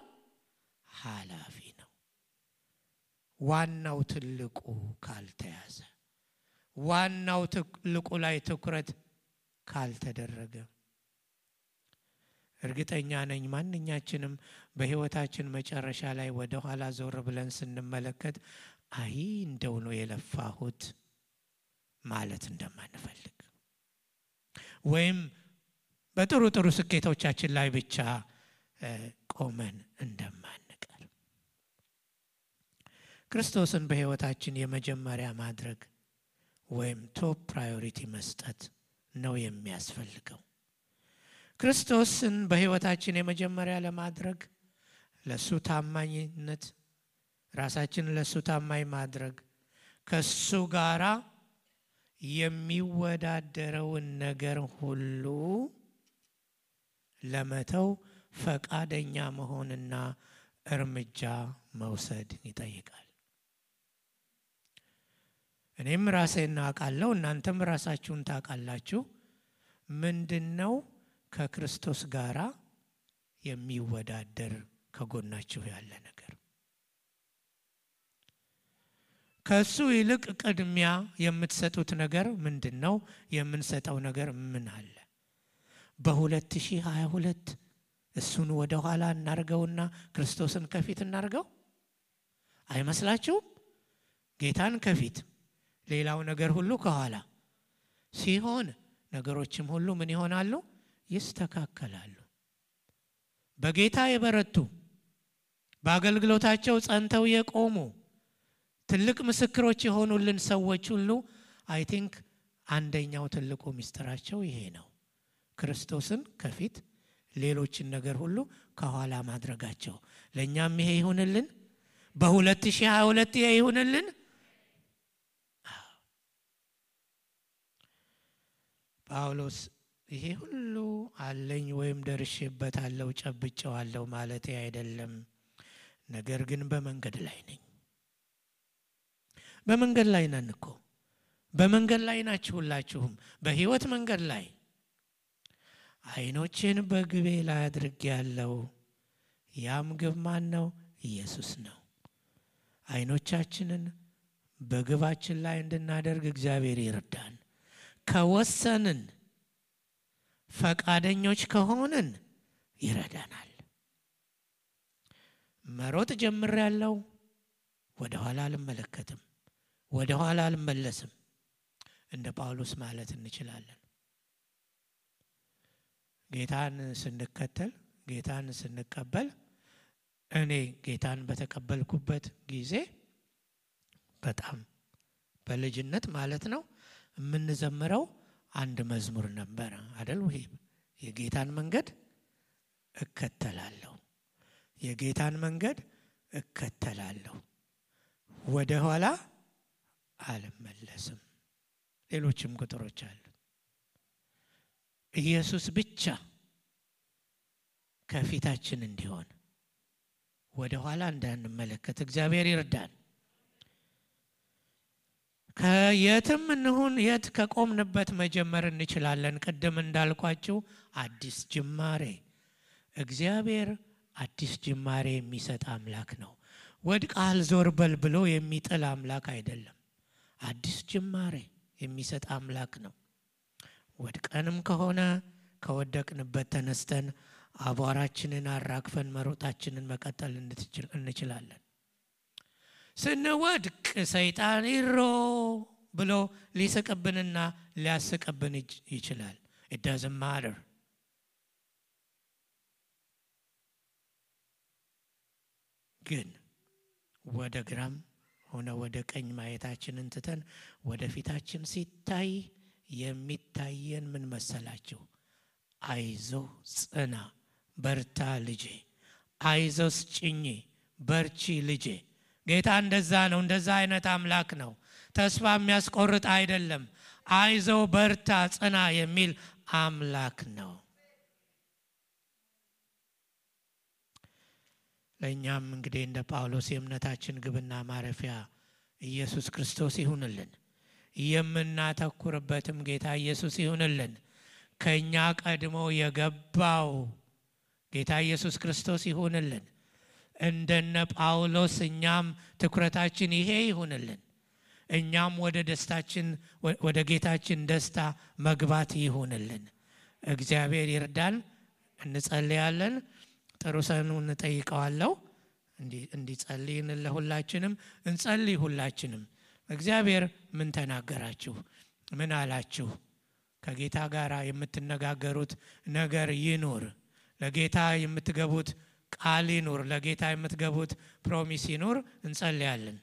ኃላፊ ነው። ዋናው ትልቁ ካልተያዘ፣ ዋናው ትልቁ ላይ ትኩረት ካልተደረገ እርግጠኛ ነኝ ማንኛችንም በህይወታችን መጨረሻ ላይ ወደ ኋላ ዞር ብለን ስንመለከት አይ እንደው ነው የለፋሁት ማለት እንደማንፈልግ ወይም በጥሩ ጥሩ ስኬቶቻችን ላይ ብቻ ቆመን እንደማንቀር ክርስቶስን በህይወታችን የመጀመሪያ ማድረግ ወይም ቶፕ ፕራዮሪቲ መስጠት ነው የሚያስፈልገው። ክርስቶስን በህይወታችን የመጀመሪያ ለማድረግ ለሱ ታማኝነት ራሳችንን ለሱ ታማኝ ማድረግ ከሱ ጋራ የሚወዳደረውን ነገር ሁሉ ለመተው ፈቃደኛ መሆንና እርምጃ መውሰድ ይጠይቃል። እኔም ራሴን አውቃለሁ፣ እናንተም ራሳችሁን ታውቃላችሁ። ምንድነው ከክርስቶስ ጋራ የሚወዳደር ከጎናችሁ ያለ ነገር? ከሱ ይልቅ ቅድሚያ የምትሰጡት ነገር ምንድነው? የምንሰጠው ነገር ምን አለ? በ2022 እሱን ወደ ኋላ እናርገውና ክርስቶስን ከፊት እናርገው አይመስላችሁም? ጌታን ከፊት ሌላው ነገር ሁሉ ከኋላ ሲሆን ነገሮችም ሁሉ ምን ይሆናሉ? ይስተካከላሉ። በጌታ የበረቱ በአገልግሎታቸው ጸንተው የቆሙ ትልቅ ምስክሮች የሆኑልን ሰዎች ሁሉ አይ ቲንክ አንደኛው ትልቁ ሚስጥራቸው ይሄ ነው። ክርስቶስን ከፊት ሌሎችን ነገር ሁሉ ከኋላ ማድረጋቸው። ለኛም ይሄ ይሁንልን። በ2022 ይሄ ይሁንልን። ጳውሎስ ይሄ ሁሉ አለኝ ወይም ደርሼበታለሁ ጨብጬዋለሁ ማለት አይደለም፣ ነገር ግን በመንገድ ላይ ነኝ። በመንገድ ላይ ነን እኮ። በመንገድ ላይ ናችሁ ሁላችሁም፣ በህይወት መንገድ ላይ። አይኖችን በግቤ ላይ አድርጌያለሁ። ያም ግብ ማን ነው? ኢየሱስ ነው። አይኖቻችንን በግባችን ላይ እንድናደርግ እግዚአብሔር ይርዳን። ከወሰንን ፈቃደኞች ከሆንን ይረዳናል። መሮጥ ጀምሬያለሁ፣ ወደ ኋላ አልመለከትም፣ ወደ ኋላ አልመለስም እንደ ጳውሎስ ማለት እንችላለን። ጌታን ስንከተል ጌታን ስንቀበል እኔ ጌታን በተቀበልኩበት ጊዜ በጣም በልጅነት ማለት ነው የምንዘምረው አንድ መዝሙር ነበር አይደል? ወይ የጌታን መንገድ እከተላለሁ፣ የጌታን መንገድ እከተላለሁ፣ ወደ ኋላ አልመለስም። ሌሎችም ቁጥሮች አሉ። ኢየሱስ ብቻ ከፊታችን እንዲሆን ወደ ኋላ እንዳንመለከት እግዚአብሔር ይርዳን። ከየትም እንሁን የት ከቆምንበት መጀመር እንችላለን። ቅድም እንዳልኳችሁ አዲስ ጅማሬ፣ እግዚአብሔር አዲስ ጅማሬ የሚሰጥ አምላክ ነው። ወድቀሃል ዞር በል ብሎ የሚጥል አምላክ አይደለም። አዲስ ጅማሬ የሚሰጥ አምላክ ነው። ወድቀንም ከሆነ ከወደቅንበት ተነስተን አቧራችንን አራግፈን መሮጣችንን መቀጠል እንችላለን። ስንወድቅ ሰይጣን ይሮ ብሎ ሊስቅብንና ሊያስቅብን ይችላል። it doesn't matter። ግን ወደ ግራም ሆነ ወደ ቀኝ ማየታችንን ትተን ወደ ፊታችን ሲታይ የሚታየን ምን መሰላችሁ? አይዞ ጽና፣ በርታ ልጄ፣ አይዞስ ጭኝ፣ በርቺ ልጄ። ጌታ እንደዛ ነው። እንደዛ አይነት አምላክ ነው። ተስፋ የሚያስቆርጥ አይደለም። አይዞ በርታ ጽና የሚል አምላክ ነው። ለእኛም እንግዲህ እንደ ጳውሎስ የእምነታችን ግብና ማረፊያ ኢየሱስ ክርስቶስ ይሁንልን። የምናተኩርበትም ጌታ ኢየሱስ ይሁንልን። ከኛ ቀድሞ የገባው ጌታ ኢየሱስ ክርስቶስ ይሁንልን። እንደነ ጳውሎስ እኛም ትኩረታችን ይሄ ይሁንልን። እኛም ወደ ደስታችን ወደ ጌታችን ደስታ መግባት ይሁንልን። እግዚአብሔር ይርዳን። እንጸልያለን። ጥሩ ሰኑን እንጠይቀዋለሁ እንዲጸልይን ለሁላችንም እንጸልይ። ሁላችንም እግዚአብሔር ምን ተናገራችሁ? ምን አላችሁ? ከጌታ ጋር የምትነጋገሩት ነገር ይኑር። ለጌታ የምትገቡት ቃል ይኑር። ለጌታ የምትገቡት ፕሮሚስ ይኑር። እንጸልያለን።